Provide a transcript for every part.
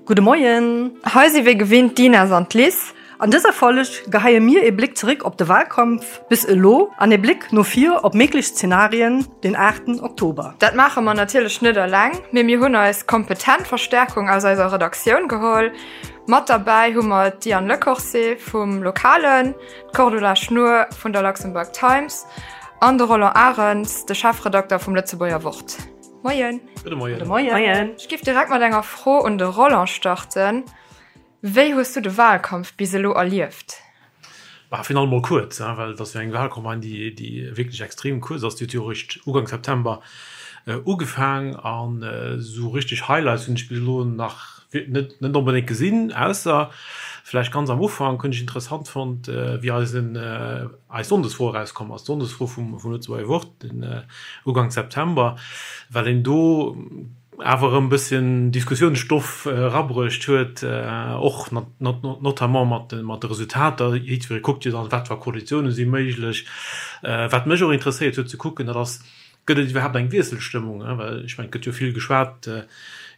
Gudde Moien! Hei si wéi gewinnt d'Ines an d'Liz. An dëser Folg geheie mir ee Bléck zeréck op de Walkampf bis elo an ee Bléck no vir op méiglech Zenarien den 8 Oktober. Dat maache mer natierlech net eleng, mee mir hunn eis kompetent Verstärkung aus eiser Redaktioun geholl. Mat derbäi hu mer d'Diane Lecorse vum Lokalen, d'Cordula Schnoor vun der Luxembourg Times an de Roland Arens, de Chefredakter vum Lëtzebuerger Wort. Moien. Gudde Moien. Gudde Moien. Ech géif direkt mat enger Fro un de Roland starten. Wéi hues du de Wahlkampf bis elo erlieft? Bah, virun allem mol kuerz, well et ass jo eng Wahlcampagne, déi, déi wierklech extrem kuerz ass. Déi huet jo eréischt Ugank September ugefaang an esou richteg Highlights hunn ech bis elo nach net, net onbedéngt gesinn, ausser vläicht ganz am Ufank hunn ech interessant fonnt, wéi eisen, eis Sonndesfro erauskomm ass, d'Sonndesfro vum Lëtzebuerger Wort den Ugank September, well een do awer erëm e bësschen Diskussiounsstoff erabruecht huet, och notamment mat de Resultater. Jiddweree kuckt jo dann, wat fir Koalitioune si méiglech. Wat mech och interesséiert huet ze kucken, dat ass, Gëtt et iwwerhaapt eng Wiesselstëmmung? Well ech mengen, et gëtt jo vill geschwat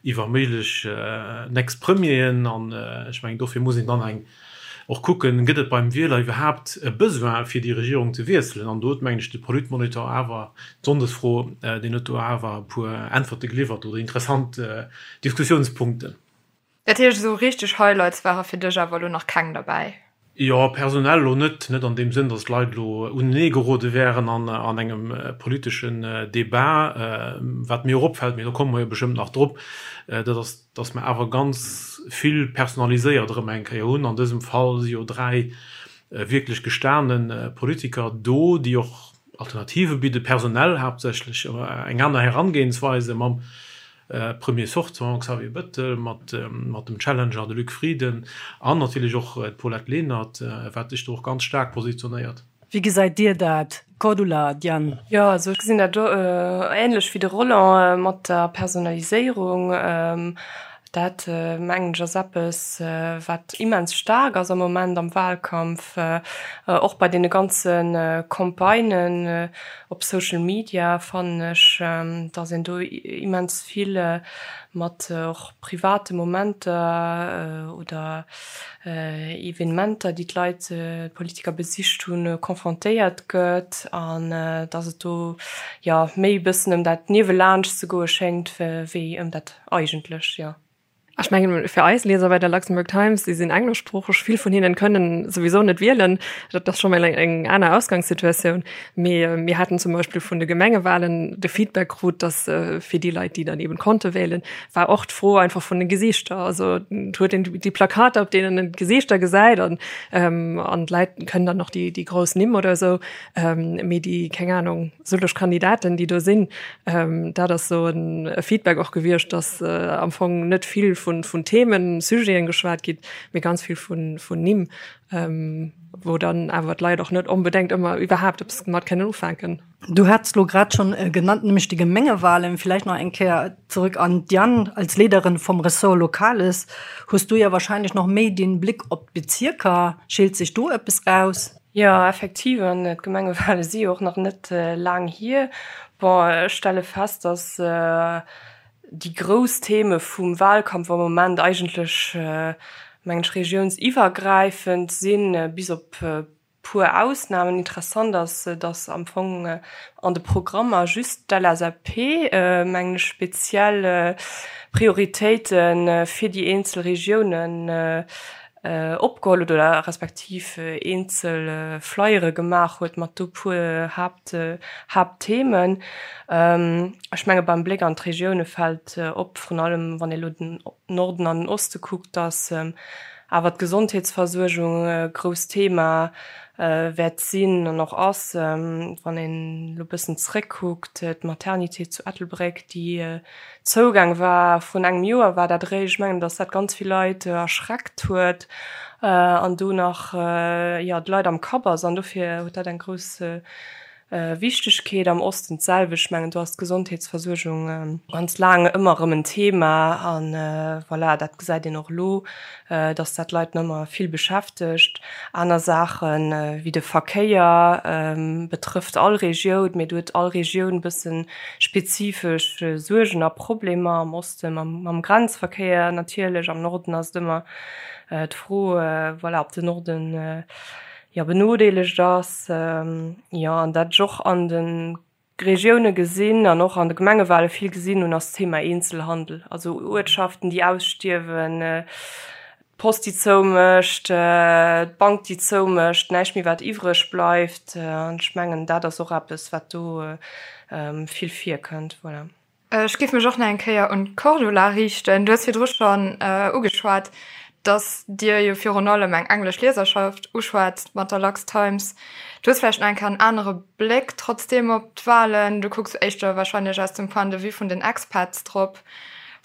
iwwer méiglech next Premieren an ech mengen, dofir muss een dann eng och kucken, gëtt et beim Wieler iwwerhaapt e Besoin fir déi Regierung ze wiesselen? An do huet, mengen ech, de Politmonitor awer, d'Sonndesfro, deen huet do awer e puer Äntwerte geliwwert oder interessant Diskussiounspunkten. Dat heescht, esou richteg Highlights ware fir dech awer elo nach keng derbäi? Jo, personell elo net. Net an deem Sënn, datt d'Leit elo unenee gerode wären an engem politeschen Debat. Wat mir och opfält, mee do komme mer jo bestëmmt nach drop, dat ass, datt mer awer ganz vill personaliséiert erëm eng Kéier hunn. An dësem Fall si jo 3 wierklech gestane Politiker do, déi och Alternative bidden, personell haaptsächlech, eng aner Herangehensweise mam Premier sortant Xavier Bettel, mat dem Challenger, de Luc Frieden, an natierlech och d'Paulette Lenert, wat sech do och ganz staark positionéiert. Wéi gesäit Dir dat, Cordula, Diane? Jo, also ech gesinn dat änlech wéi de Roland mat der Personaliséierung. Dat mengen ech ass eppes, wat immens staark ass am Moment am Wahlkampf, och bei deene ganze Campagnen op Social Media fannen ech, datt een do immens vill mat och private Momenter oder Evenementer, déi d'Leit, d'Politiker besicht hunn, confrontéiert gëtt an datt et do jo méi e bëssen ëm dat niewelaanscht ze goe schéngt wéi ëm dat Eigentlech, jo. Ech mengen, fir eis Lieser bei der Luxembourg Times, déi sinn engleschsproocheg, vill vun hinnen kënnen souwisou net wielen. Dat ass scho mol eng, eng aner Ausgangssituatioun. Mee mir haten zum Beispill vun de Gemengewahlen de Feedback krut, dass fir déi Leit, déi dann eben konnte wählen, war och d'Fro einfach vun de Gesiichter. Also et huet een déi Plakater, op deenen een d'Gesiichter gesäit an, an d'Leit kënnen dann och déi, déi grouss Nimm oder esou. Mee déi, keng Ahnung, sëlleg Kandidaten, déi do sinn, dat ass esou e Feedback och gewiescht, datt am Fong net vill vun Themen, Sujeten geschwat gitt, mee ganz vill vun Nimm, wou dann awer d'Leit och net onbedéngt ëmmer iwwerhaapt eppes mat kënnen ufänken. Du hats elo grad schonn genannt, nämlech déi Gemengewahlen. Villäicht nach eng Kéier zurück an d'Diane. Als Leederin vum Ressort Lokales hues du ja wahrscheinlech nach méi den Blick op d'Bezierker. Scheelt sech do eppes raus? Jo, effektiv, an d'Gemengewale si jo och nach net laang hier. Bon, ech stelle fest, datt déi grouss Theme vum Wahlkampf am Moment eigentlech, mengen ech, regiounsiwwergräifend sinn, bis op puer Ausnamen. Interessant ass, datt am Fong an de Programmer just d'LSAP, mengen ech, speziell Prioritéite fir déi eenzel Regiounen opgeholl huet oder respektiv eenzel Flyere gemaach huet mat do puer Haapt, Haaptthemen. Ech menge beim Bléck an d'Regioune fält op, vrun allem wann ee lo den Norden an den Oste kuckt, datt awer d'Gesondheetsversuergung e grousst Thema wäert sinn an och ass. Wann een elo bëssen zréckkuckt, d'Maternité zu Ettelbréck, déi Zougang war. Vrun engem Joer war dat eréischt. Ech mengen, datt dat ganz vill Leit erschreckt huet an do nach, jo, d'Leit am Kapp ass. An dofir huet dat eng grouss. Wichtegkeet. Am Osten d'selwecht. Ech mengen, do ass d'Gesondheetsversuergung ganz laang ëmmer erëm en Thema. A voilà, dat gesäit een och elo, dass dat d'Leit nach ëmmer vill beschäftegt. Aner Saache wéi de Verkéier betrëfft all Regioun, mee do huet all Regioun e bësse spezifesch Suergen a Problemer. Am Oste mam Grenzverkéier natierlech, am Norden ass et ëmmer d'Fro, voilà, ob de Norden jo benodeelegt ass, jo an dat ech och an de Regioune gesinn an och an de Gemengewale vill gesinn hunn, ass d'Thema Eenzelhandel, also Uertschaften déi ausstierwen, d'Post déi zoumécht, d'Bank déi zoumécht, näischt méi wat iwwreg bleift an ech mengen dat ass och eppes wat do vill virkënnt, voilà. Ech géif mech och nach eng Kéier un d'Cordula riichten. Du hues virdru schonn ugeschwat, dass Dir jo virun allem eng englesch Lieserschaft uschwätzt mat der Lux Times. Du hues vläicht nach eng Kéier en anere Bléck trotzdeem op d'Wahlen. Du kucks éischter warscheinlech aus dem Point de vue vun den Expats drop.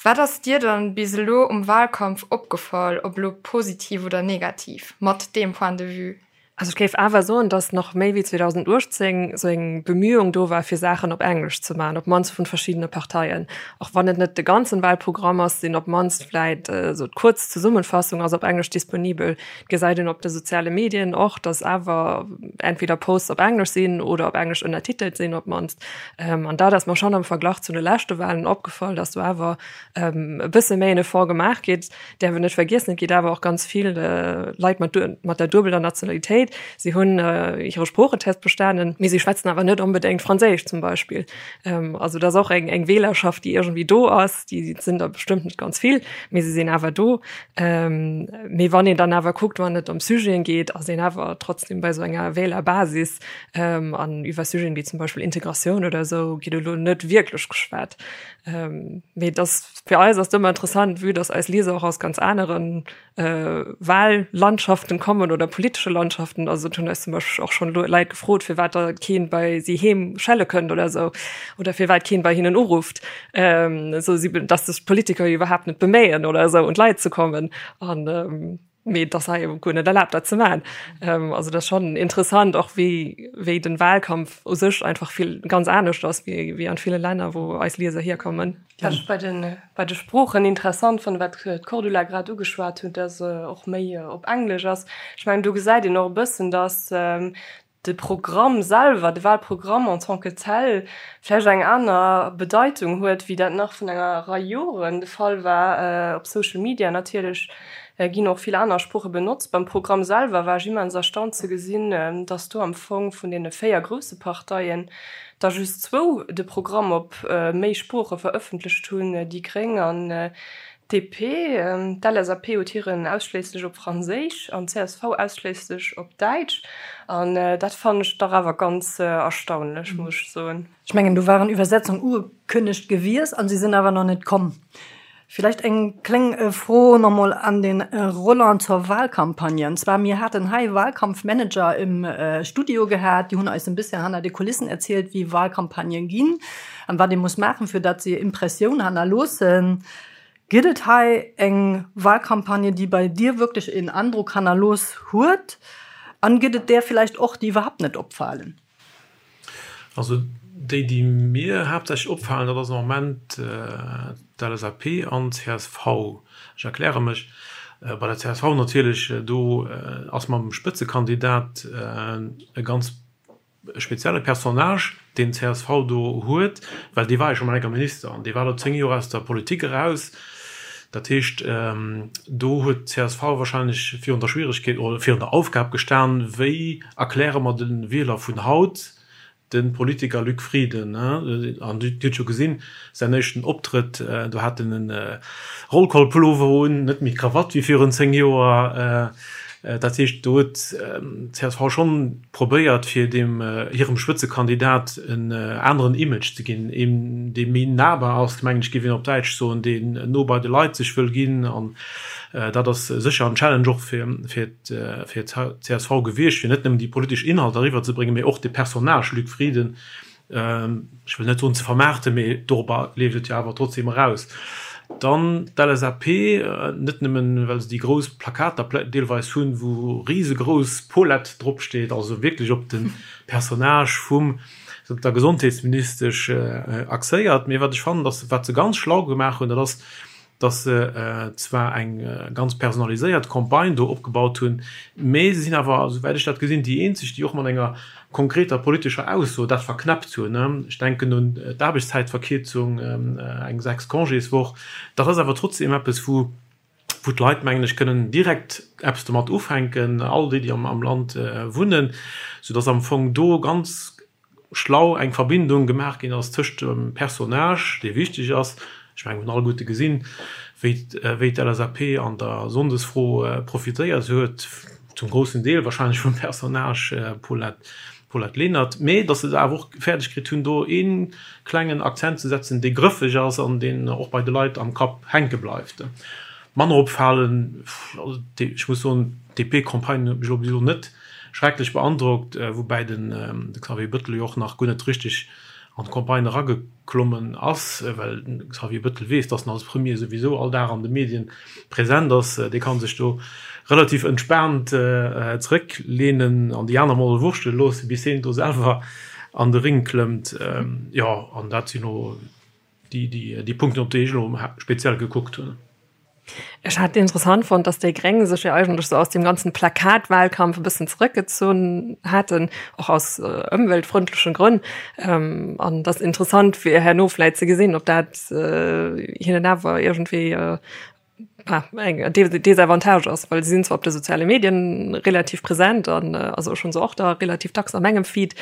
Wat ass dir dann bis elo um Wahlkampf opgefall, ob elo positiv oder negativ, mat deem Point de vue? Also ech géif awer soen, datt nach méi wéi 2018 esou eng Bemühung do war, fir Saachen op Englesch ze maachen, op d'mannst vun verschiddene Parteien. Och wann et net de ganzen Wahlprogramm ass, sinn op d'mannst vläit esou d'kuerz Zesummenfassung ass op Englesch disponibel. Et gesäit een op de soziale Medien och, datt awer entweder Posts op Englesch sinn oder op Englesch ënnertitelt sinn op d'mannst. An dat ass mer schonn am Verglach zu de leschte Wahlen opgefall, datt do awer e bësse méi en Effort gemaach gétt. Däerf een net vergiessen, et gétt awer och ganz vill Leit mat mat der duebeler Nationalitéit. Si hunn hire Sproochetest bestanen, mee si schwätzen awer net onbedéngt Franséisch zum Beispill. Also dat ass och eng eng Wählerschaft, déi iergendwéi do ass. Déi sinn der bestëmmt net ganz vill, mee se sinn awer do. Mee wann een dann awer kuckt, wann et ëm Sujeten geet, ass een awer trotzdem bei esou enger Wählerbasis. An iwwer Sujeten wéi zum Beispill Integratioun oder esou gétt elo net wierklech geschwat. Mee dass fir eis ass et ëmmer interessant, vue dass eis Lieser och aus ganz aneren Wahllandschaften kommen oder politesche Landschaften. Also et hunn eis zum Beispill och schonn Leit gefrot, firwat da keen bei si heem schelle kënnt oder esou oder firwat keen bei hinnen urufft, esou si dass sech d'Politiker jo iwwerhaapt net beméien oder esou un d'Leit ze kommen. An mee et ass hei guer net erlaabt dat ze maachen. Also dat ass schonn interessant och wéi wéi den Wahlkampf u sech einfach vill ganz anescht ass wéi wéi an ville Länner wou eis Lieser hierkommen. Wat ech bei de bei de Sproochen interessant fannen, wat d'Cordula grad ugeschwat huet, dass och méi op Englesch ass. Ech mengen do gesäit een och e bëssen, dass de Programm selwer, de Wahlprogramm en tant que tel, vläicht eng aner Bedeitung huet, wéi dat nach vun enger Rei Joren de Fall war. Op Social Media natierlech ginn och vill aner Sprooche benotzt. Beim Programm selwer war ech immens erstaunt ze gesinn, dass do am Fong vun deene 4 grousse Parteien der just zwou de Programm op méi Sprooche verëffentlecht hunn, déi Gréng an DP, D'LSAP huet hiren ausschléisslech op Franséisch an d'CSV ausschléisslech op Däitsch. An dat fannen ech dach awer ganz erstaunlech, muss ech soen. Ech mengen, do waren Iwwersetzung ugekënnegt gewiesst an se sinn awer nach net komm. Villäicht eng kléng Fro nach mol an den Roland zur Wahlcampagne. An zwar, mir haten hei Wahlkampfmanager im Studio gehat, déi hunn eis en bisschen hanner de Kulissen erzielt, wéi Wahlcampagnen ginn. An wat ee muss maachen, fir datt se Impressioun hannerloossen. Gëtt et hei eng Wahlcampagne, déi bei dir wierklech een Androck hannerlooss huet? An gëtt et där villäicht och, déi iwwerhaapt net opfalen? Also déi, déi mir haaptsächlech opfalen, dat ass am Moment d'LSAP an d'CSV. Ech erkläre mech, Bei der csv natierlech, do ass mam Spëtzekandidat e ganz e spezielle Personnage, deen d'CSV do huet, well dee war jo scho mol enker Minister an dee war elo 10 Joer aus der Politik eraus. Dat heescht, do huet d'CSV wahrscheinlech virun der Schwieregkeet oder virun der Aufgab gestan, wéi erkläre mer de Wieler vun haut de Politiker Luc Frieden? An Dir hutt jo gesinn, säin éischten Optrëtt, do hat en e Rollkollpullover un, net méi d'Krawatt wéi virun 10 Joer. Dat heescht, do huet csv schonn probéiert, fir deem hirem Spëtzekandidat en aneren Image ze ginn, een, dee méi nahbar ass, mengen ech, géif een op Däitsch soen, deen no bei de Leit sech wëll ginn. An dat ass sécher en Challenge och fir d'CSV gewiescht, fir net nëmmen déi politesch Inhalter eriwwerzebréngen, mee och de Personnage Luc Frieden, ech wëll net soen ze vermaarten, mee dorobber leeft et jo awer trotzdeem eraus. Dann d'LSAP, net nëmmen, well se déi grouss Plakater deelweis hunn, wou risegrouss Paulette dropsteet, also wierklech op de Personnage vum der Gesondheetsministesch axéiert, mee wat ech fannen, dass wat se ganz schlau gemaach hunn, dat ass, dass se zwar eng ganz personaliséiert Campagne do opgebaut hunn, mee se sinn awer, esouwäit ech dat gesinn, déi eenzeg, déi och mat enger konkreter politescher Ausso dat verknäppt hunn. Ech denken un d'Aarbechtszäitverkierzung, eng 6 Congéswoch. Dat ass awer trotzdeem eppes, wou wou d'Leit, mengen ech, kënnen direkt eppes domat ufänken, all déi, déi am Land wunnen, soudass am Fong do ganz schlau eng Verbindung gemaach ginn ass tëscht dem Personnage, dee wichteg ass, ech mengen, mir hunn alleguerte gesinn, wéi wéi d'LSAP an der Sonndesfro profitéiert huet, zum groussen Deel wahrscheinlech vum Personnage Paulette, Paulette Lenert, mee datt se et awer och fäerdeg kritt hunn, do ee klengen Akzent ze setzen, dee grëffeg ass an deen och bei de Leit am Kapp hänke bleift. Manner opfalen, also ech muss soen, d'DP-Campagne huet mech elo bis elo net schrecklech beandrockt, woubäi den Xavier Bëttel jo och nach guer net richteg an d'Campagne erageklommen ass, well de Xavier Bëttel weess, datt en als Premier souwisou all Dag an de Medien present ass. Dee ka sech do relativ entspaant zerécklehnen an déi aner mol wurschtele loossen, bis hien do selwer an de Ring klëmmt. Jo, an dat sinn elo déi Punkten, op déi ech elo speziell gekuckt hunn. Ech hat interessant fonnt, dass déi Gréng sech jo eigentlech sou aus deem ganzen Plakatwahlkampf e bëssen zrëckgezunn haten, och aus ëmweltfrëndlechen Grënn. An et ass interessant fir herno vläit ze gesinn, ob dat hinnen awer iergendwéi eng Desavantage ass, well si sinn zwar op de soziale Medien relativ present an also ech hunn se och da relativ dacks a mengem Feed,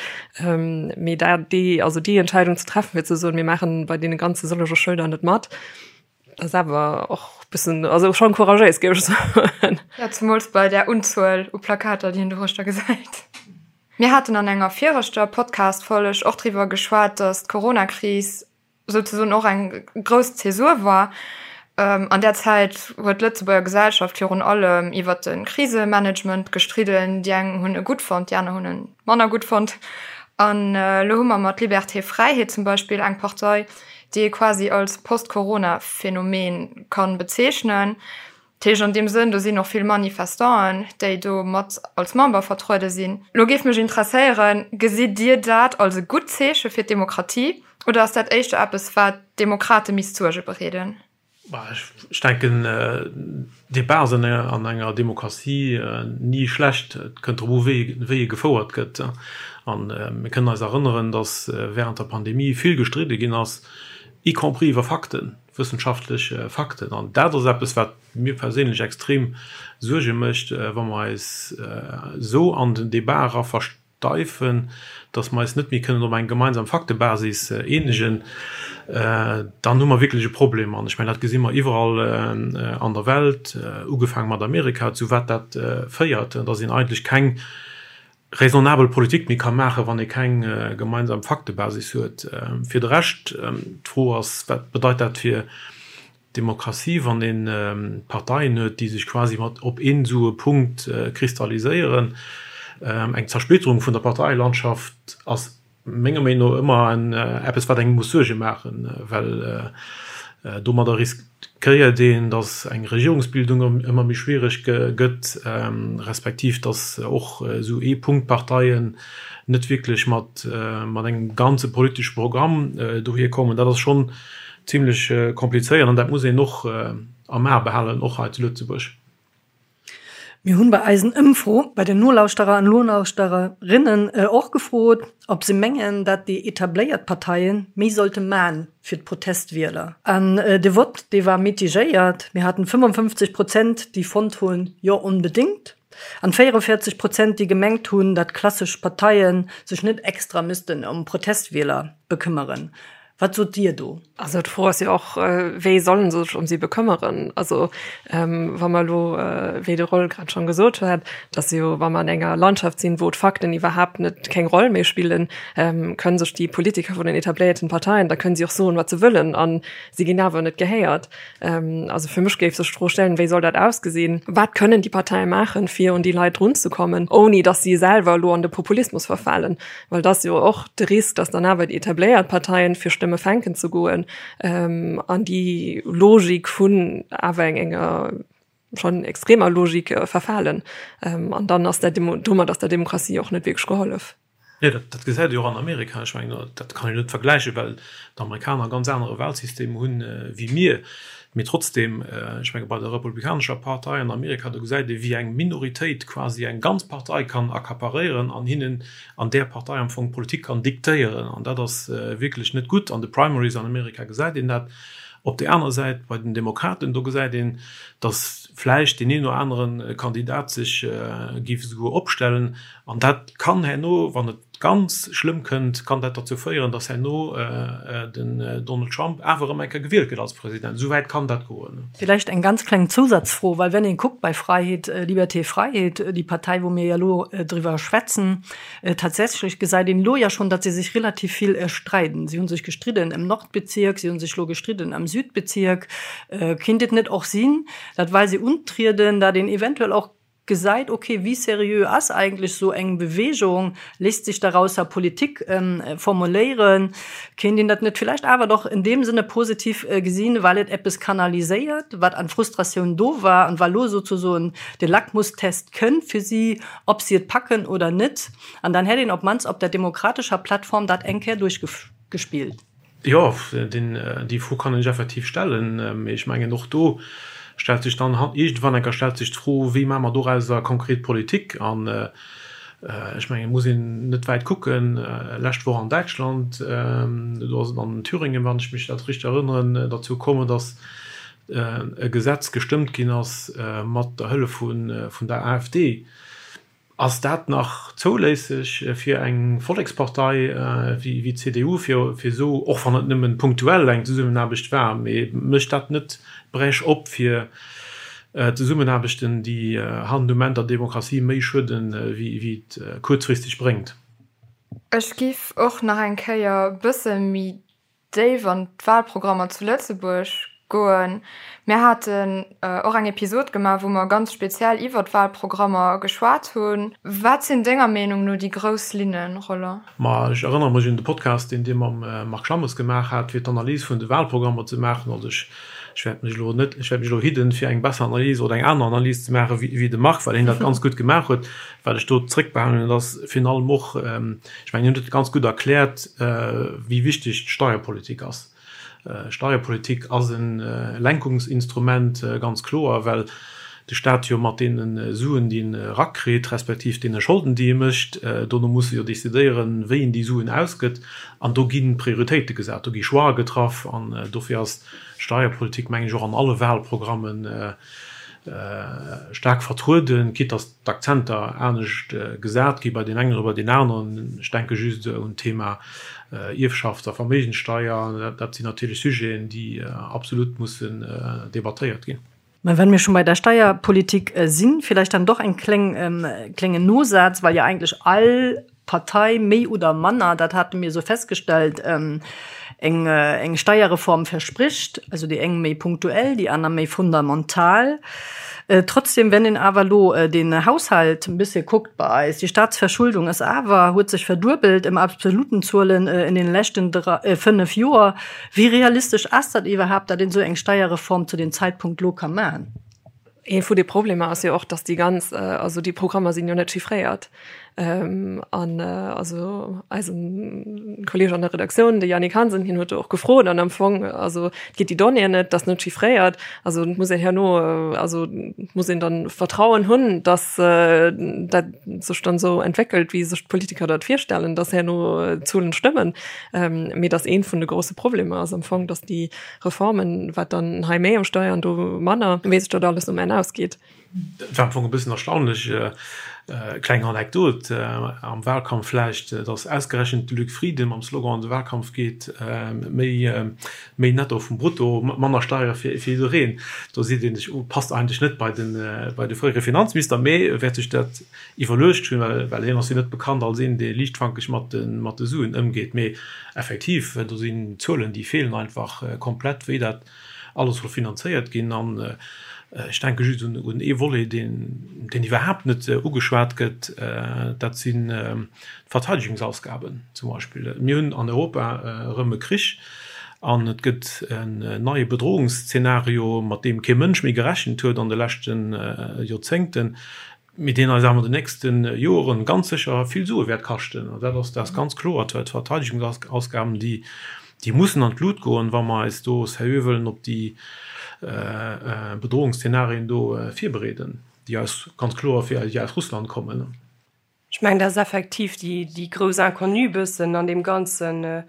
mee dat déi also déi Entscheidung ze treffen, fir ze soen, mir maachen bei deene ganze sëllege Schëlder net mat, ass awer och bëssen, also schon couragéis, géif ech soen. Jo, zemools bei där Unzuel u Plakater, déi een doruechter gesäit. Mir haten an enger viregter Podcast-Folg och driwwer geschwat, datt d'Coronakris souzesoen och eng grouss Zäsur war. An där Zäit huet d'Lëtzebuerger Gesellschaft virun allem iwwer de Krisemanagement gestridden. Déi eng hunn e gutt fonnt, déi aner hunn e manner gutt fonnt. An elo hu mer mat Liberté Fräiheet zum Beispill eng Partei, déi ee quasi als Post-Corona-Phänomen kann bezeechnen. Dat heescht an deem Sënn, do sinn och vill Manifestanten, déi do mat als Member vertruede sinn. Lo géif mech interesséieren, Gesitt Dir dat als e gutt Zeeche fir d'Demokratie oder ass dat éischter eppes, wat d'Demokrate misst Suerge bereeden? Ech denken, Debat ass an enger Demokratie ni schlecht. Et kënnt drop u wéi e gefouert gëtt. A mir kënnen eis erënneren, datt während der Pandemie vill gestridde ginn ass, y compris iwwer Fakten, wëssenschaftlech Fakten. An dat ass eppes, wat mir perséinlech extrem Suerge mécht, wa mer eis esou an den Debat era Deifen, datt mer eis net méi kënnen op eng gemeinsam Faktebasis eenegen, dann hu mer wierklech e Problem. An ech mengen, dat gesi mer iwwerall an der Welt, ugefaange mat Amerika, zu wat dat féiert, datt een eigentlech keng raisonnabel Politik méi ka maachen, wann ee keng gemeinsam Faktebasis huet. Fir de Rescht, d'Fro ass, Wat bedeit dat fir Demokratie, wann ee Parteien huet, déi sech quasi mat op een esou e Punkt kristalliséieren. Eng Zersplitterung vun der Parteielandschaft ass menger Meenung no ëmmer en eppes, wat engem muss Suerge maachen, well domadder riskéiert een, datt eng Regierungsbildung ëmmer méi schwiereg gëtt, respektiv datt och esou Ee-Punkt-Parteien net wierklech mat engem ganze politesche Programm dohier kommen. Dat ass schonn Zimlech komplizéiert an dat muss een och am A behalen, och hei zu Lëtzebuerg. Mir hunn bei eisen Ëmfro bei den Nolauschterer an Nolauschtererinnen och gefrot, ob se mengen, dat déi etabléiert Parteien méi sollte man fir d'Protestwieler. An de Vott, dee war mitigéiert. Mir haten 55 Prozent, déi fonnt hunn, jo onbedéngt, an 44 Prozent, déi gemengt hunn, dat klassesch Parteien sech net extra missten ëm Protestwieler bekëmmeren. Wat sot Dir do? Also d'Fro ass jo och, wéi solle se sech ëm si bekëmmeren? Also wa mer elo, wéi de Roll grad schonn gesot huet, dass jo, wa mer an enger Landschaft sinn, wou d'Fakten iwwerhaapt net keng Roll méi spillen, kënnen sech déi Politiker vun den etabléierten Parteien, da kënnen si och soen, wat se wëllen, a si ginn awer net gehéiert. Also fir mech géif sech d'Fro stellen, wéi soll dat ausgesinn? Wat kënnen déi Parteie maachen, fir un déi Leit drunzekommen, ouni dass si selwer elo an de Populismus verfalen? Well et ass jo och de Risk, datt dann awer déi etabléiert Parteien fir Stëmmen. Stëmme fänken ze goen an déi Logik vun awer enger schonn extremer Logik verfalen. An dann ass der domat ass der Demokratie och net wierklech gehollef. Jo, dat gesäit ee jo och an Amerika. Ech mengen, dat kann een net vergläichen, well d'Amerikaner e ganz anere Wahlsystem hunn wéi mir. Mee trotzdem, ech menge bei der Republikanescher Partei an Amerika, do gesäit ee wéi eng Minoritéit quasi eng ganz Partei kann accaparéieren an hinnen an där Partei am Fong d'Politik kann diktéieren. An dat ass wierklech net gutt. An de Primaries an Amerika gesäit een dat. Op där anerer Säit, bei den Demokraten, do gesäit een, datt vläicht deen een oder anere Kandidat sech géif esouguer opstellen. An dat kann herno, wann et ganz schlëmm kënnt, kann dat derzou féieren, datt herno den Donald Trump awer erëm eng Kéier gewielt gëtt als President. Esou wäit kann dat goen. Villäicht eng ganz kleng Zousatzfro, well wenn een kuckt bei Freiheet, Liberté, Freiheet, déi Partei wou mir jo elo driwwer schwätzen, tatsächlech gesäit een elo jo schonn, datt se sech relativ vill streiden. Si hu sech gestridden ëm Nordbezierk, si hu sech elo gestridden am Südbezierk. Kinnt et net och sinn, datt well se untrieden, datt een eventuell och gesäit, ok, wéi seriö ass eigentlech esou eng Bewegung, léisst sech darausser Politik formuléieren, kéint een dat net villäicht awer doch in deem Sënne positiv gesinn, well et eppes kanaliséiert, wat an Frustratioun do war an well lo souzesoen de Lackmustest kënnt fir si, ob si et packen oder net, an dann hätt een op mannst op der demokratescher Plattform dat eng Kéier duerchgespillt. Jo, déi Fro kann een sech effektiv stellen. Mee ech mengen, och do stellt sech dann iergendwann eng Kéier stellt sech d'Fro, Wéi maache mer dorauser konkret Politik? An ech mengen, et muss een net wäit kucken, Lescht Woch an Däitschland, do ass et an Thüringen, wann ech mech dat richteg erënneren, derzou kommen, datt e Gesetz gestëmmt ginn ass mat der Hëllef vun der AfD. Ass dat nach zouléisseg fir eng Vollekspartei wéi d'CDU, fir esou, och wann et nëmmen punktuell eng Zesummenaarbecht war, mee mécht dat net d'Brèche op fir Zesummenaarbechten, déi hannen um Enn der Demokratie méi schueden, wéi et kuerzfristeg bréngt? Ech giff och nach eng Kéier bësse méi déif an d'Wahlprogrammer zu Lëtzebuerg goen. Mir haten och eng Episod gemaach, wou mer ganz speziell iwwer d'Wahlprogrammer geschwat hunn. Wat sinn denger Meenung no déi grouss Linnen, Roland? Ma ech erënnere mech un de Podcast, deen Dir mam Marc Schammes gemaach hat, fir d'Analys vun de Wahlprogrammer ze maachen. Also ech ech wäert mech elo net, ech wäert mech elo hidden, fir eng besser Analys oder eng aner Analys ze maachen, wéi de Marc, well hien dat ganz gutt gemaach huet. Wat ech do zréckbehalen hunn, ass virun allem och, Ech mengen, hien huet et ganz gutt erkläert, wéi wichteg d'Steierpolitik ass. Steierpolitik ass e Lenkungsinstrument, ganz kloer, well de Stat jo mat deene Suen, déi en erakritt, respektiv deene Scholden, déi e mécht, dono muss e jo decidéieren, wéi en déi Suen ausgëtt. An do gi Prioritéite gesat, do gi Choixë getraff. An dofir ass d'Steierpolitik, mengen ech, och an alle Wahlprogrammen staark vertrueden, quitte dass d'Akzenter anescht gesat gi bei deem engen oder bei deem aneren. Ech denke just un d'Thema Ierfschafts a Verméigenssteier. Dat sinn natierlech Sujeten, déi absolut mussen debattéiert ginn. Mä wenn mir schon bei der Steierpolitik sinn, vielleicht dann doch en kléngen Nosaz, well jo eigentlech all Partei méi oder manner, dat hate mir esou festgestellt, eng eng Steierreform verspricht, also déi eng méi punktuell, déi aner méi fundamental. Trotzdem, wenn een awer elo den Haushalt e bëssche kuckt bei eis, déi Staatsverschuldung ass awer, huet sech verduebelt ëm absoluten Zuelen in den leschten 5 Joer. Wéi realistesch ass dat iwwerhaapt, datt een esou eng Steierreform zu deem Zeitpunkt elo ka maachen? Ee vu de Problemer ass jo och, dass déi ganz, also déi Programmer sinn jo net chiffréiert. An also eisen Kolleeg an der Redaktioun, de Yannick Hansen, hien huet do och gefrot an am Fong, also et gétt déi Donnéeën net, dat ass net chiffréiert. Also et muss een herno, also et muss een dann Vertrauen hunn, dass dat sech dann esou entwéckelt, wéi sech d'Politiker dat virstellen, dass herno d'Zuelen stëmmen. Mee dass ee vun de grousse Problemer ass am Fong, dass déi Reformen, wat dann hei méi um Steier an do manner, wéi sech dat alles um Enn ausgeet. Et war am Fong e bëssen erstaunlech, kleng Anekdot am Wahlkampf vläicht, datt ausgerechent de Luc Frieden mam Slogan an de Wahlkampf geet, méi méi Netto vum Brutto, manner Steiere fir jiddereen. Do seet ee sech, oh, passt eigentlech net bei de bei de fréiere Finanzminister, mee e wäert sech dat iwwerluecht hunn, well hien ass jo net bekannt als een, dee liichtfankeg mat de mat de Suen ëmgeet. Mee effektiv, do sinn Zuelen, déi feelen einfach komplett, wéi dat alles soll finanzéiert ginn. An. Ech denke just un ee Volet, deen iwwerhaapt net ugeschwat gëtt, dat sinn d'Verteidigungsausgaben zum Beispill. Mir hunn an Europa erëm e Krich an et gëtt en neie Bedrohungsszenario, mat deem kee Mënsch méi gerechent huet an de leschte Joerzéngten. Mee deen eis awer an den nächste Joren ganz sécher vill Sue wäert kaschten. An dat ass, dat ass ganz kloer. D'Verteidigungsausgaben, déi, déi mussen an d'Lut goen, wa mer eis do seriö wëllen op déi Bedrohungsszenarien do virbereeden, déi eis ganz kloer, déi aus Russland kommen. Ech mengen, dat ass effektiv déi, déi grouss Inconnue bëssen an deem Ganzen,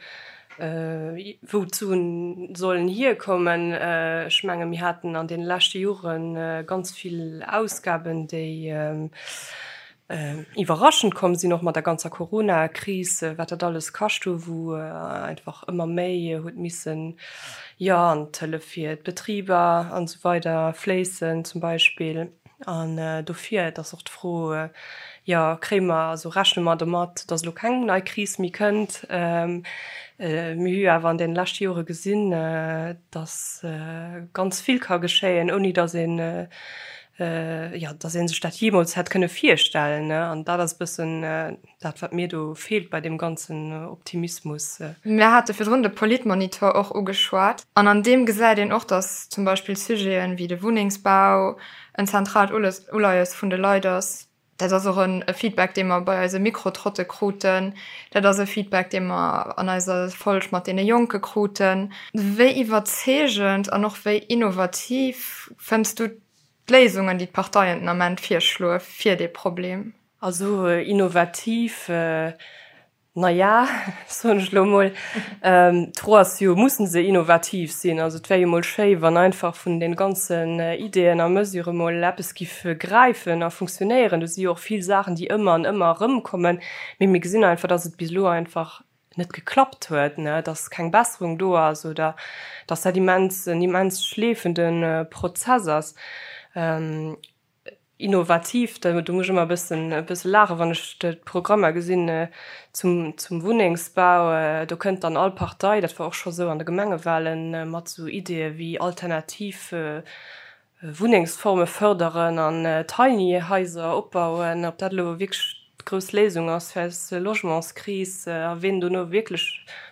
wou d'Suen sollen hierkommen. Ech menge mir haten an deene leschte Jore ganz vill Ausgaben, déi iwwerraschend komm sinn, och mat der ganzer Coronakris, wat dat alles kascht hu, wou einfach ëmmer méi huet missen, jo, an d'Hëllef fir d'Betriber an esou weider fléissen zum Beispill. An dofir, et ass och d'Fro, jo, kréie mer, also rechne mer domat, datt elo keng nei Kris méi kënnt? Mir hu jo awer an deene leschte Jore gesinn, datt ganz vill ka geschéien, ouni datt een, jo, datt ee sech dat jeemools hätt kënne virstellen. An dat ass e bëssen Dat wat mir do feelt bei deem ganzen Optimismus. Mir hate virdrun de Politmonitor och ugeschwat an an deem gesäit een och, datt zum Beispill Sujeten wéi de Wunnengsbau en zentraalt Uleies vun de Leit ass. Dat ass och e Feedback, dee mer bei eise Mikrotrotte kruten. Dat ass e Feedback, dee mer an eiser Folg mat deene Jonke kruten. Wéi iwwerzeegend an och wéi innovativ fënns du d'Léisungen, déi d'Parteien den Ament virschloe fir dee Problem? Also innovativ, na ja, soen ech elo emol. D'Fro ass jo, mussen se innovativ sinn? Also et wär jo emol schéi, wann einfach vun de ganzen Ideeën a Mesurë mol eppes giff gräifen a funktionéieren. Do si jo och vill Saachen, déi ëmmer an ëmmer erëmkommen, mee mir gesinn einfach, dass et bis elo einfach net geklappt huet, dass keng Besserung do ass oder dass dat immens en immens schleefende Prozess ass. Innovativ, do muss ech ëmmer e bëssen e bësse laachen, wann ech d'Programmer gesinn zum zum Wunnengsbau. Do kënnt dann all Partei, dat war och scho sou an de Gemengewahlen, mat sou Ideeë wéi alternativ Wunnengsforme fërderen an Tiny Haiser opbauen. Ob dat elo wierklech d'grouss Léisung ass fir eis Logementskris a wien dono wierklech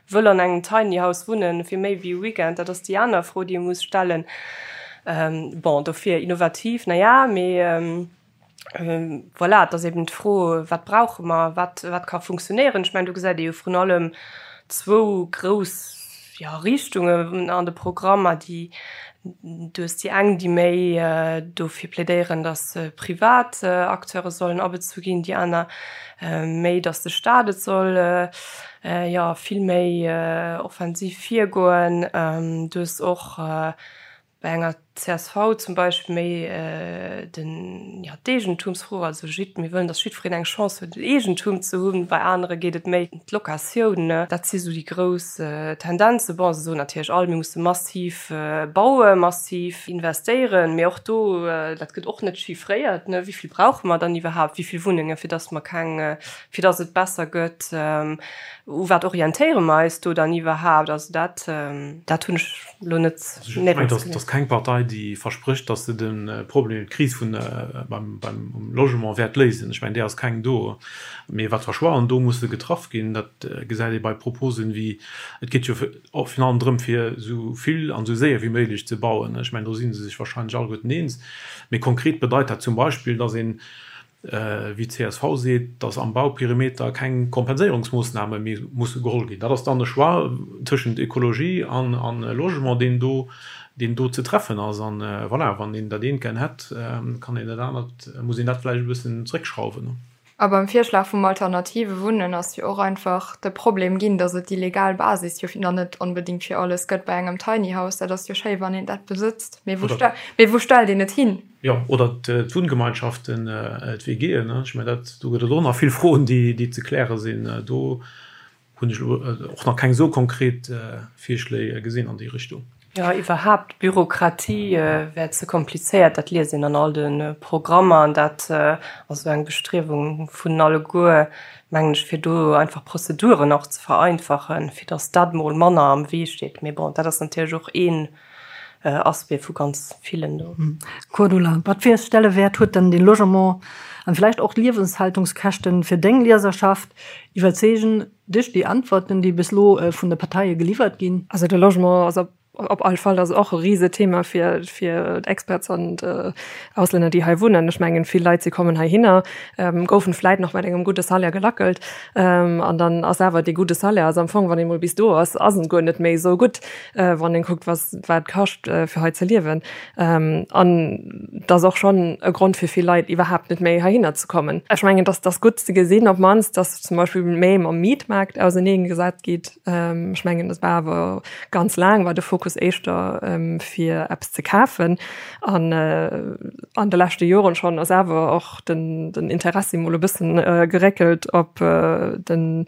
wëll an engem Tiny House wunnen fir méi wéi e Weekend, dat ass déi aner Fro, déi ee muss stellen. Bon, dofir innovativ, na ja, mee voilà, et ass eben d'Fro, wat brauche mer, wat, wat ka funktionéieren. Ech mengen, do gesäit ee jo vrun allem zwou grouss, jo, Richtungen an de Programmer, déi, du hues déi eng, déi méi dofir plädéieren, datt privat Acteure sollen abezu ginn, déi aner méi, datt de Staat et soll, jo, vill méi offensiv virgoen. Du hues och bei enger csv zum Beispill méi den, jo, d'Eegentumsfro, also jidd, mir wëllen, datt jiddwereen eng Chance huet, en Eegentum ze hunn. Bei anere geet et méi ëm d'Locatioun. Dat si sou déi grouss Tendenzen. Bon, se soen natierlech all, mir musse massiv bauen, massiv investéieren, mee och do, dat gëtt och net chiffréiert, ne, wéi vill brauche mer dann iwwerhaapt, wéi vill Wunnengen, fir datt mer keng, fir datt et besser gëtt, u wat orientéiere mer eis do dann iwwerhaapt? Also dat, dat hunn ech elo net néierens gesinn. Et ass keng Partei, déi versprécht, datt se de Problem, d'Kris vun beim beim Logement wäert léisen. Ech mengen, där ass keng do. Mee wat fir Choixen do musse getraff ginn, dat gesäit ee bei Proposen wéi, et geet jo och virun allem drëm, fir esou vill an esou séier wéi méiglech ze bauen. Ech mengen, do si se sech wahrscheinlech alleguerten eens. Mee konkret bedeit dat zum Beispill, datt een wéi d'CSV seet, datt am Bauperimeter keng Kompenséierungsmoossname méi musse geholl ginn. Dat ass dann e Choix tëschent Ekologie an Logement, deen do, deen do ze treffen ass. An voilà, wann een dat eent gär hätt, kann een dat anert, muss een dat vläicht e bëssen zréckschrauwen. A beim Virschlag vum alternative Wunnen ass jo och einfach de Problem ginn, datt et déi legal Basis jo nach net onbedéngt fir alles gëtt. Bei engem Tiny House, dat ass jo schéi, wann een dat besëtzt, mee wou stellt een et hin? Jo, oder d'Wunngemeinschaften, d'WGen. Ech mengen, dat, do gëtt et och nach vill Froen, déi ze kläre sinn. Do hunn ech elo och nach keng esou konkret Virschléi gesinn an déi Richtung. Jo, iwwerhaapt, d'Bürokratie wär ze komplizéiert, dat liest een an all de Programmer. An dat ass esou eng Bestriewung vun alleguer, mengen ech, fir do einfach Prozeduren och ze vereinfachen, fir datt dat emol manner am Wee steet. Mee bon, dat ass natierlech och een. Aspect vu ganz villen do. Cordula, Wat fir e Stellewäert huet denn de Logement an vläicht och d'Liewenshaltungskäschten fir deng Lieserschaft? Iwwerzeegen dech déi Antworten, déi bis elo vun de Parteie geliwwert ginn? Also de Logement ass op op all Fall ass och e Risethema fir fir d'Expats an d'Auslänner, déi hei wunnen. Ech mengen, vill Leit, si kommen heihinner, goufen vläit nach mat engem gudde Salaire gelackelt an dann ass awer dee gudde Salaire ass am Fong, wann ee mol bis do ass, ass en guer net méi esou gutt, wann een kuckt, was wat et kascht, fir hei ze liewen. An et ass och schonn e Grond fir vill Leit iwwerhaapt net méi heihinner ze kommen. Ech mengen, dass dass gutt ze gesinn op d'mannst, dass zum Beispill méi mam Mietmaart auserneegesat geet. Ech mengen, dat war awer ganz laang war de Fokus éischter fir eppes ze kafen. An an de leschte Joren schonn ass awer och den den Interessi mol e bëssen geréckelt op den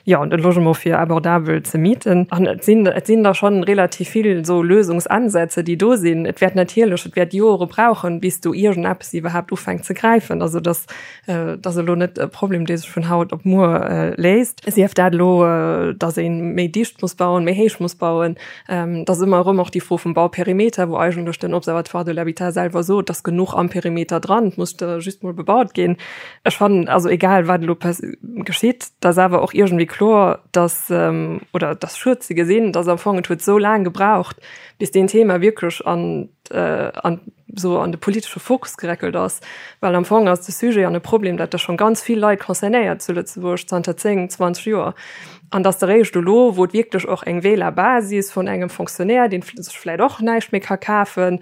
jo, de Logement fir abordabel ze mieten. An et sinn, et sinn der schonn relativ vill esou Lösungsansätze, déi do sinn. Et wäert natierlech, et wäert Jore brauchen, bis do iergendeppes iwwerhaapt ufänkt ze gräifen. Also dass, dat ass elo net e Problem, dee sech vun haut op muer léist. Sief dat elo, dass ee méi dicht muss bauen, méi héich muss bauen. Et ass ëmmer erëm och déi Fro vum Bauperimeter, wou eigentlech den Observatoire de l'habitat selwer sot, et ass genuch am Perimeter dran, et muss just mol bebaut ginn. Ech fannen, also egal wat elo geschitt, et ass awer och iergendwéi kloer, dass, oder et ass schued ze gesinn, dass am Fong et huet esou laang gebraucht, bis deen Thema wierklech an an esou an de politesche Fokus gereckelt ass, well am Fong ass de Sujet an e Problem, dat da schonn ganz vill Leit concernéiert zu Lëtzebuerg zanter 10, 20 Joer, an dass eréischt elo, wou et wierklech och eng Wählerbasis vun engem Fonctionnaire, deen sech vläicht och näischt méi ka kafen,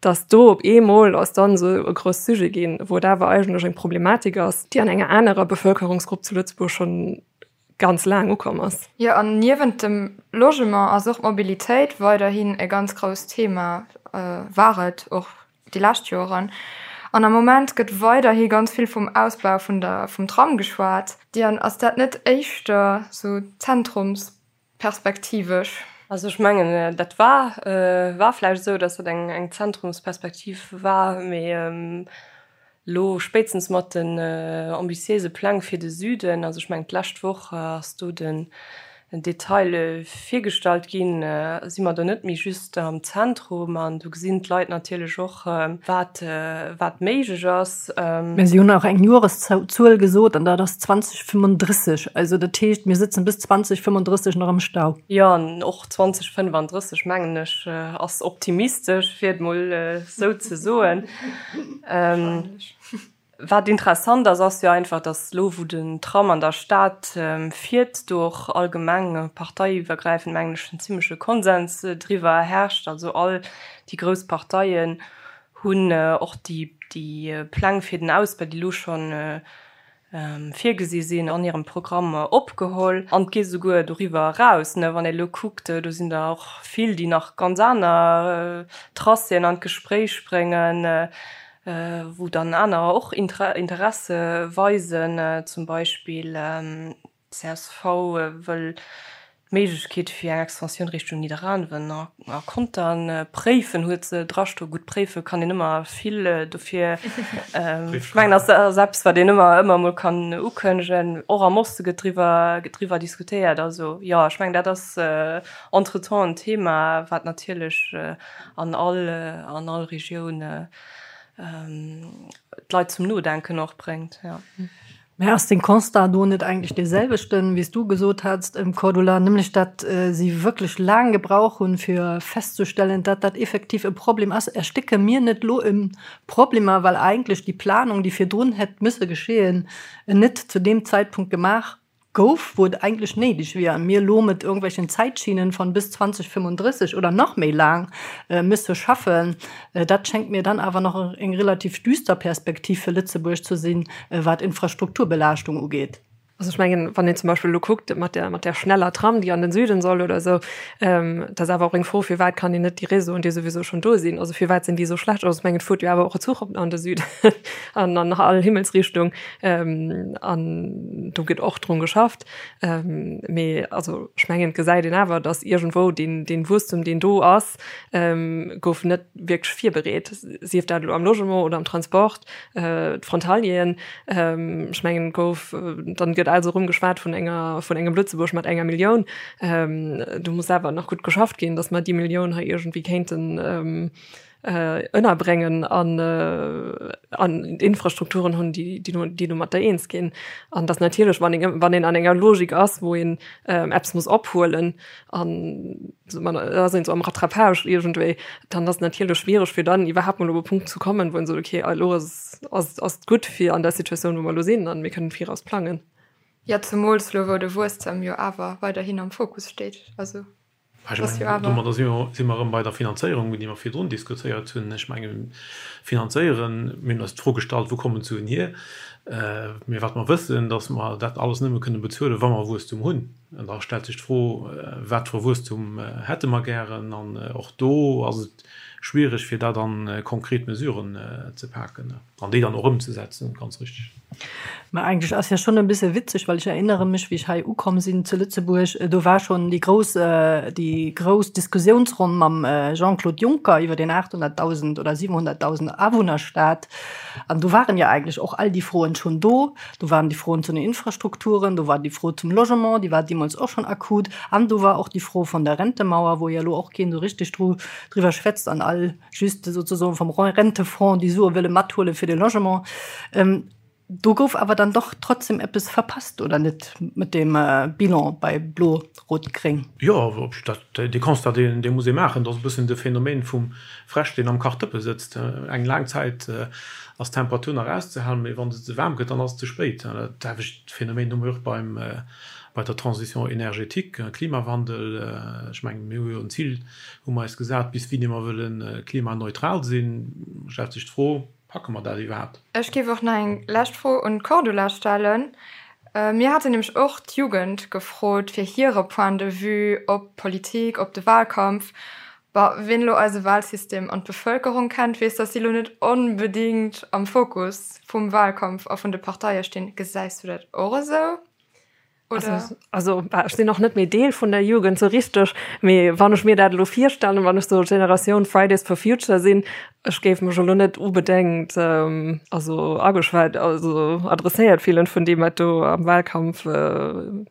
dass do op eemol ass dann esou e grouss Sujet ginn, wou et awer eigentlech eng Problematik ass, déi an enger anerer Bevölkerungsgrupp zu Lëtzebuerg schonn ganz laang ukomm ass. Jo, an niewent dem Logement ass och d'Mobilitéit weiderhin e ganz grousst Thema, war et och déi lescht Joren. An am Moment gëtt weiderhi ganz vill vum Ausbau vun der, vum Tram geschwat. Diane, ass dat net éischter sou Zentrums Perspektivesch. Also ech mengen, dat war, war vläicht esou, datt dat eng, eng Zentrumsperspektiv war, mee elo spéitstens mat den ambitiéise Pläng fir de Süden, also ech mengen d'lescht Woch ass do den Detail virgestallt ginn, si mer do net méi just am Zentrum an do gesinn d'Leit natierlech och, wat, wat méiglech ass. Mä si hunn och eng Joreszuel gesot an dat ass 2035. Also dat heescht, mir sëtzen bis 2035 nach am Stau. Jo, an och 2035, mengen ech, ass optimistesch, fir et mol esou ze soen. Wat interessant ass, ass jo einfach, datt elo, wou den Tram an der Stad fiert, do och allgemeng parteiiwwergräifend, mengen ech, en zimleche Konsens driwwer herrscht. Also all déi grouss Parteien hunn och déi Pläng fir den Ausbau, déi elo schonn virgesi sinn, an hirem Programm opgeholl. An et geet esouguer doriwwer eraus, wann ee elo kuckt, do sinn der och vill, déi nach ganz aner Tracéen an d'Gespréich bréngen, wou dann anerer och Interesse weisen, zum Beispill Csv wëll d'Méiglechkeet fir eng Extensioun Richtung Nidderaanwen a Contern préifen, huet se drastoen. Gutt, préife kann een ëmmer vill, dofir ech mengen, ass ass eppes, wat een ëmmer ëmmer emol kann ukënnegen. Och am Oste gëtt driwwer gëtt driwwer diskutéiert. Also jo, ech mengen, dat ass entretemps en Thema, wat natierlech an all an all Regioun d'Leit zum Nodenken och bréngt, jo. Mä ass den Constat do net eigentlech dee selwechten, wéi s du gesot hats, Cordula, nämlech datt si wierklech laang gebrauch hunn, fir festzustellen, datt dat effektiv e Problem ass? Erstécke mir net elo e Problemer, well eigentlech déi Planung, déi virdrun hätt müsse geschehen, net zu deem Zeitpunkt gemaach gouf, wou et eigentlech néideg wier, a mir elo mat irgendwelchen Zäitschienen von bis 2035 oder nach méi laang müsse schaffen? Dat schéngt mir dann awer nach eng relativ düster Perspektiv fir Lëtzebuerg ze sinn, wat Infrastrukturbelaaschtung ugeet. Also ech mengen, wann een zum Beispill elo kuckt mat der, mat där schneller Tram, déi an den Süden soll oder esou, dat ass awer och eng Fro, firwat kann een net déi Réseauen, déi souwisou schonn do sinn, also firwat sinn déi esou schlecht? Also ech mengen, et fuert jo awer och e Zuch op an de Süden an an all Himmelsrichtung an do gëtt och drun geschafft. Mee also ech mengen, et gesäit een awer, datt iergendwou deen, deen Wuesstum, deen do ass, gouf net wierklech virbereet, sief dat elo am Logement oder am Transport, d'Frontalieren, ech mengen, gouf, dann gëtt. gëtt also erëm geschwat vun enger, vun engem Lëtzebuerg mat enger Millioun. Do muss awer nach gutt geschafft ginn, datt mer déi Millioun hei iergendwéi kéinten ënnerbréngen an an Infrastrukturen hunn, déi déi domatter eens ginn. An datt natierlech, wann een wann een an enger Logik ass, wou een eppes muss ophuelen an ass een esou am Rattrapage iergendwéi, dann ass et natierlech schwiereg fir dann iwwerhaapt mol op e Punkt ze kommen, wou een sot, okay, elo ass ass ass et gutt fir an der Situatioun, wou mer elo sinn an mir kënnen viraus plangen. Jo, zemools elo wou de Wuesstem jo awer weiderhin am Fokus steet. Also Ech mengen, domadder si mer erëm bei der Finanzéierung, déi mer virdrun diskutéiert hunn. Ech mengen, finanzéieren, mir hunn eis d'Fro gestallt, wou kommen d'Suen hier? Mee wat mer wëssen, datt mer dat alles nëmme kënne bezuelen, wa mer Wuesstum hunn. An da stellt sech d'Fro, Wat fir e Wuesstum hätte mer gären? An och do ass et schwierig, fir dat a konkret Mesuren ze paken an déi dann och ëmzesetzen, ganz richtig. Mä eigentlech ass jo schonn e bësse witzeg, well ech erinnere mech, wéi ech hei ukomm sinn zu Lëtzebuerg, do war schonn déi grouss, déi grouss Diskussiounsronn mam Jean-Claude Juncker iwwer deen 800.000 oder 700.000 Awunnerstaat. An do waren jo eigentlech och all déi Froen schonn do. Do waren déi Froen zu den Infrastrukturen, do war déi Fro zum Logement, déi war deemools och schonn akut, an do war och déi Fro vun der Rentemauer, wou jo elo och keen esou richtig dru driwwer schwätzt an all just sozusagen vom Rentefonds déi Sue wëlle mathuele fir de Logement. Do gouf awer dann doch trotzdem eppes verpasst, oder net, mat deem Bilan bei Blo-Rot-Gréng? Jo, dat, dee Constat, deen, dee muss ee maachen. Dat ass e bëssen de Phänomen vum Fräsch, deen am Kachdëppe sëtzt. Eng laang Zäit ass d'Temperatur nach auszehalen, mee wann se ze waarm gëtt, dann ass et ze spéit. Dat selwecht Phänomen hu mir och beim, bei der Transition énergétique, Klimawandel. Ech mengen, mir hu jo en Zil, hu mer eis gesat, bis wéini mer wëlle klimaneutral sinn. Stellt sech d'Fro, Packe mer dat iwwerhaapt? Ech géif och nach eng lescht Fro un d'Cordula stellen. Mir haten nämlech och d'Jugend gefrot fir hire Point de vue op d'Politik, op de Wahlkampf. Bah, wien elo eise Wahlsystem an d'Bevëlkerung kennt, weess, dass si elo net onbedéngt am Fokus vum Wahlkampf a vun de Parteie stinn. Gesäis du dat och esou? Oder? Also, also ech sinn och net méi Deel vun der Jugend sou richteg, mee wann ech mir dat elo virstellen, wann ech sou Generatioun Fridays for Future sinn, ech géif mech elo net unbedéngt ähm, also ageschwat, also adresséiert fillen vun deem wat do am Wahlkampf äh,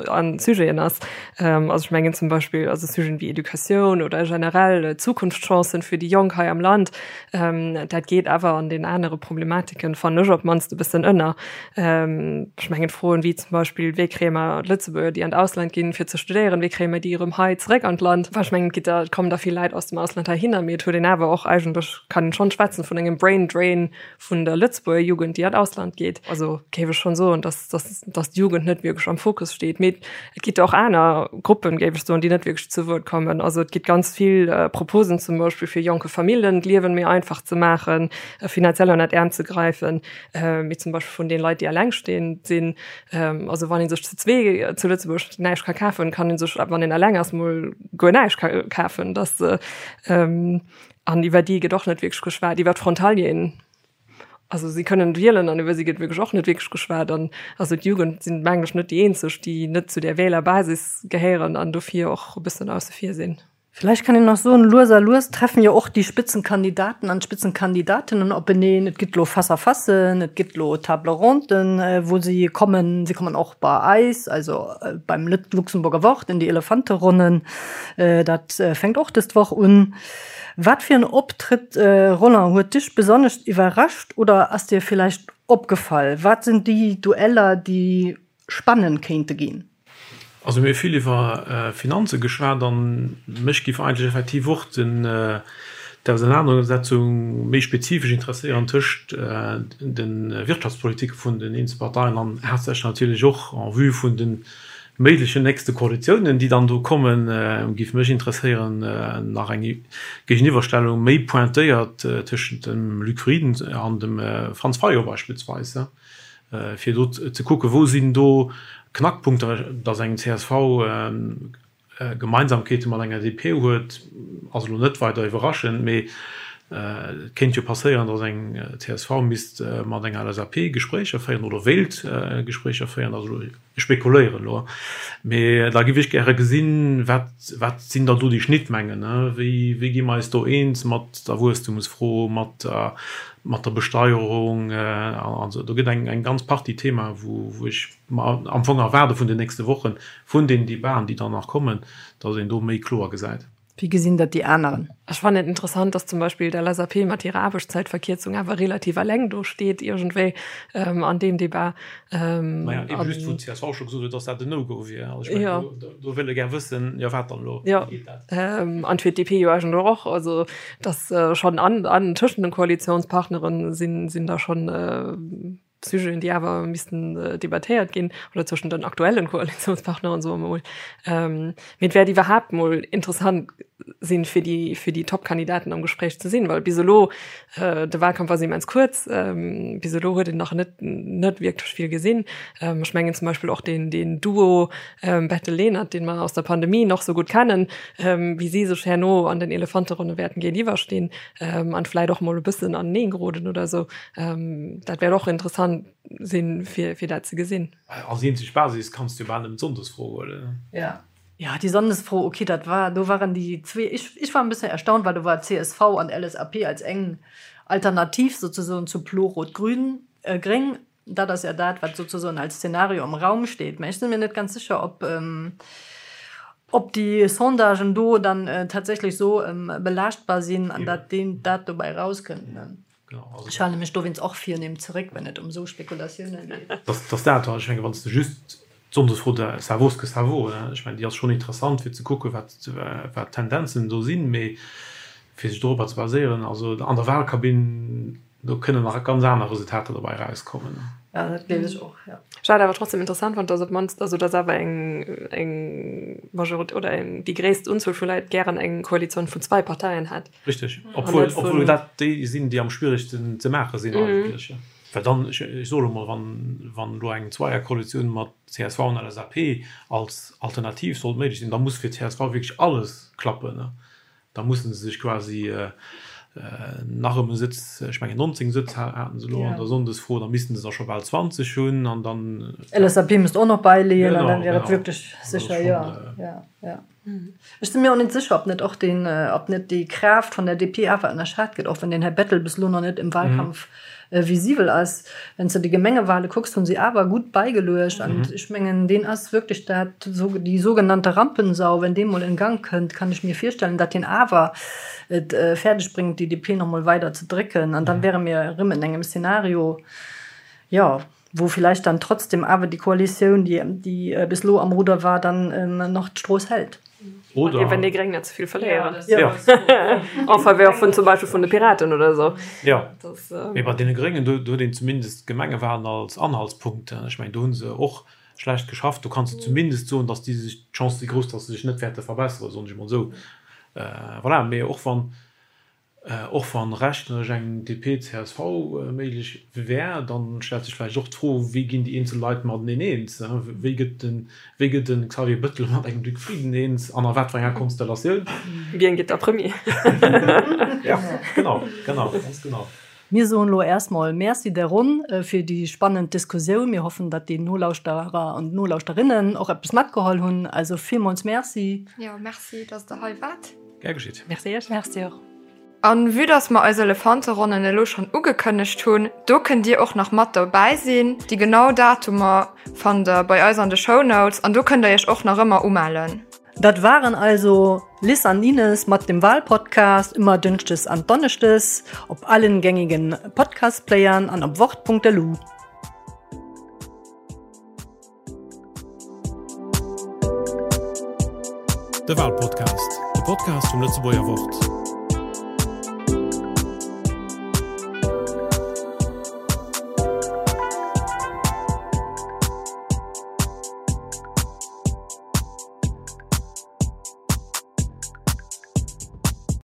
an Sujeten ass. Ähm, also ech mengen zum Beispill also Sujeten wéi Educatioun oder generell Zukunftschancen fir déi Jonk hei am Land, ähm, dat geet awer an den anere Problematiken, fannen ech op d'mannst e bëssen ënner. Ech mengen Froen wéi zum Beispill, wéi kréie mer d'Lëtzebuerger, déi an d'Ausland ginn, fir ze studéieren, wéi kréie mer déi erëm hei zeréck an d'Land? Well ech mengen, et gitt der, et kommen der vill Leit aus dem Ausland heihinner, mee et huet een awer och eigentlech, kann een schonn schwätzen vun engem Brain Drain vun der Lëtzebuerger Jugend, déi an d'Ausland geet. Also géif ech schonn soen, dass, dass, dass d'Jugend net wierklech am Fokus steet. Mee et gitt och aner Gruppen, géif ech soen, déi net wierklech zu Wuert kommen. Also et gitt ganz vill Proposen zum Beispill fir jonke Famillen d'Liewen méi einfach ze maachen, finanziell ënnert d'Äerm ze gräifen. Mee zum Beispill vun den Leit, déi allengstehend sinn. Also wann ee sech zu zwee zu Lëtzebuerg näischt ka kafen, kann ee sech, wann een eleng ass, mol guer näischt kafen. Dass, an iwwer déi gëtt och net wierklech geschwat, iwwer d'Frontalieren. Also si kënnen wielen an iwwer si gëtt wierklech och net wierklech geschwat. An also d'Jugend sinn, mengen ech, net déi eenzeg, déi net zu där Wählerbasis gehéieren an dofir och e bëssen ausse vir sinn. Vielleicht kann een nach soen, lues a lues treffen jo och déi Spitzenkandidaten an d'Spitzenkandidatinnen openeen. Et gëtt elo Face-à-facen, et gëtt elo Table ronden, wou si kommen. Si kommen och bei eis, also beim Luxemburger Wort in déi Elefanteronnen. Dat fänkt och dës Woch un. Wat fir en Optrëtt, Roland, huet dech besonnesch iwwerrascht oder ass dir vielleicht opgefall? Wat sinn déi Dueller, déi spannend kéinte ginn? Also mir hu vill iwwer Finanze geschwat an mech géif eigentlech effektiv och den d'Ausenanersetzung méi spezifesch interesséieren tëscht de Wirtschaftspolitike vun den eenzel Parteien an haaptsächlech natierlech och en vue vun de méiglechen nächste Koalitiounen, déi dann do kommen, géif mech interesséieren nach eng Géigeniwwerstellung méi pointéiert tëschent dem Luc Frieden an dem Franz Fayot beispillsweis. fir do ze kucken, wou sinn do Knackpunkter, datt eng csv Gemeinsamkeete mat enger DP huet, ass elo net weider iwwerraschend, mee. Et kéint jo passéieren, datt eng csv misst mat enger LSAP Gespréicher féieren oder wéilt Gespréicher féieren. Also ech spekuléieren elo, mee da giff ech gäre gesinn, wat, wat sinn da do déi Schnittmengen? Wéi, wéi gi mer eis do eens mat der Wuesstumsfro, mat der, mat der Besteierung an esou. Do gëtt eng, eng ganz Partie Themae wou, wou ech mer am Fong erwaarde vun den nächste Wochen, vun den Debaten, déi dann nach kommen, datt een do méi kloer gesäit. Wéi gesinn dat déi aneren? Ech fannen et interessant, dass zum Beispill d'LSAP mat hirer Aarbechtszäitverkierzung awer relativ eleng do steet iergendwéi an deem Debat. Maja, eben just wou d'CSV scho gesot huet, dass dat en No-Go wier. Also ech mengen, do, do wëll e gär wëssen, jo wat dann elo, wéi geet dat? An fir d'DP jo eigentlech och. Also dass schonn an, an tëschent den Koalitionspartnere sinn, sinn da schonn Sujeten, déi awer missten debattéiert ginn, oder zwëschen den aktuellen Koalitionspartneren, soe mer mol. Mee et wäert iwwerhaapt mol interessant sinn, fir déi, fir déi Top-Kandidaten am Gespréich ze sinn, well bis elo, de Wahlkampf ass immens kuerz, bis elo huet een nach net, net wierklech vill gesinn. Ech mengen zum Beispill och deen, deen Duo Bettel-Lenert, dee mer aus der Pandemie nach sou gutt kennen, wéi si sech herno an den Elefanteronne wäerten géintiwwerstinn an vläit och mol e bëssen aneneengeroden oder esou. Ähm, dat wäert och interessant sinn, fir, fir dat ze gesinn. Als eenzeg Basis kanns du jo bal nëmmen d'Sonndesfro huelen. Ja. Ja, déi Sonndesfro, okay, dat war, do waren déi zwee, ech, ech war en bëssen erstaunt, well do war csv an LSAP als eng Alternativ sozesoen zu Blo-Rot-Grün, äh, Gréng. Dat ass ja dat, wat sozesoen als Szenario am Raum steet. Mä ech si mir net ganz sécher, ob, ob déi Sondagen do dann tatsächlech esou belaaschtbar sinn an dat deen, dat dobäi erauskënnt, ne? Ech hale mech dowéinst och virnehm zeréck, wenn et ëm esou Spekulatiounen geet. Dass dat, ech menge wann s de just d'Sonndesfro, ça vaut ce que ça vaut, ech mengen déi ass schonn interessant fir ze kucken, wat wat d'Tendenzen do sinn, mee fir sech dorobber ze baséieren, also an der Wahlkabinn, do kënnen nach ganz aner Resultater dobäi erauskommen. Jo, dat gleef ech och, jo. Ech hat awer trotzdem interessant fonnt, dass op d'mannst, also dass awer eng eng Majorité oder eng déi gréisst Unzuel vu Leit gären eng Koalitioun vun zwei Parteien hätt. Richteg, obwuel, obwuel dat déi sinn, déi am schwieregsten ze maache sinn eigentlech. Well dann, ech, ech soe lo mol, wann, wann elo eng Zweierkoalitioun mat csv an LSAP als Alternativ sollt méiglech sinn, da muss fir csv wierklech alles klappen. Da musse se sech quasi nach ëm e Sëtz, ech mengen 19 Sëtz haten se elo an der Sonndesfro, da missten se der scho bal 20 hunn an dann. LSAP misst och nach bäileeën an dann wier et wierklech sécher, jo, jo, jo. Ech si mir och net sécher, ob net och deen, ob net déi Kraaft vun der DP awer ënnerschat gëtt, och wann den Här Bettel bis elo nach net im Wahlkampf visibel ass. Wann s de déi Gemengewale kucks, hunn si awer gutt bäigeluecht. An ech mengen, deen ass wierklech dat, déi sougenannte Rampensau. Wenn dee mol in Gang kënnt, kann ech mir virstellen, datt deen awer et fäerdeg bréngt, déi DP nach mol weider ze drécken. An da wäre mir erëm en engem Szenario, jo, wou vielleicht dann trotzdem awer déi Koalitioun, déi, déi bis elo am Ruder war, dann nach d'Strooss hält. Oder wenn déi Gréng net ze vill verléieren. Ja. En faveur vun zum Beispill vun de Piraten oder esou. Ja. Mee bei deene Gréngen, do huet een zumindest d'Gemengewahlen als Anhaltspunkt. Ech mengen, do hu se och schlecht geschafft. Do kanns de zumindest soen, datt déi sech, d'Chancë si grouss, datt se sech net wäerte verbesseren, soen ech emol esou. Voilà. Mee och wann Och wann rechneresch eng DP-CSV méiglech wär, dann stellt sech vläicht och d'Fro, wéi ginn déi eenzel Leit mateneen eens? Wéi gëtt de wéi gëtt de Xavier Bëttel mat engem Luc Frieden eens an a wat fir enger Konstellatioun? Wien gëtt da Premier? Ja, genau, genau, ganz genau. Mir soen elo erstmol Merci der Ronn fir déi spannend Diskussioun. Mir hoffen, datt déi Nolauschterer an Nolauschterinnen och eppes matgeholl hunn. Also villmools Merci. Jo, Merci, datt Der hei waart. Gär geschitt. Merci iech. Merci och. An vue dass mer eis Elefanteronnen elo schonn ugekënnegt hunn, do kënnt dir och nach mat dobäi sinn. Déi genau Datumer fannt der bei eis an de Shownotes an do kënnt der iech och nach ëmmer umellen. Dat waren also Liz an Ines mat dem Wahlpodcast, ëmmer dënschdes an donneschdes op allen gängigen Podcastplayern an op wort.lu. De Walpodcast, de Podcast vum Lëtzebuerger Wort.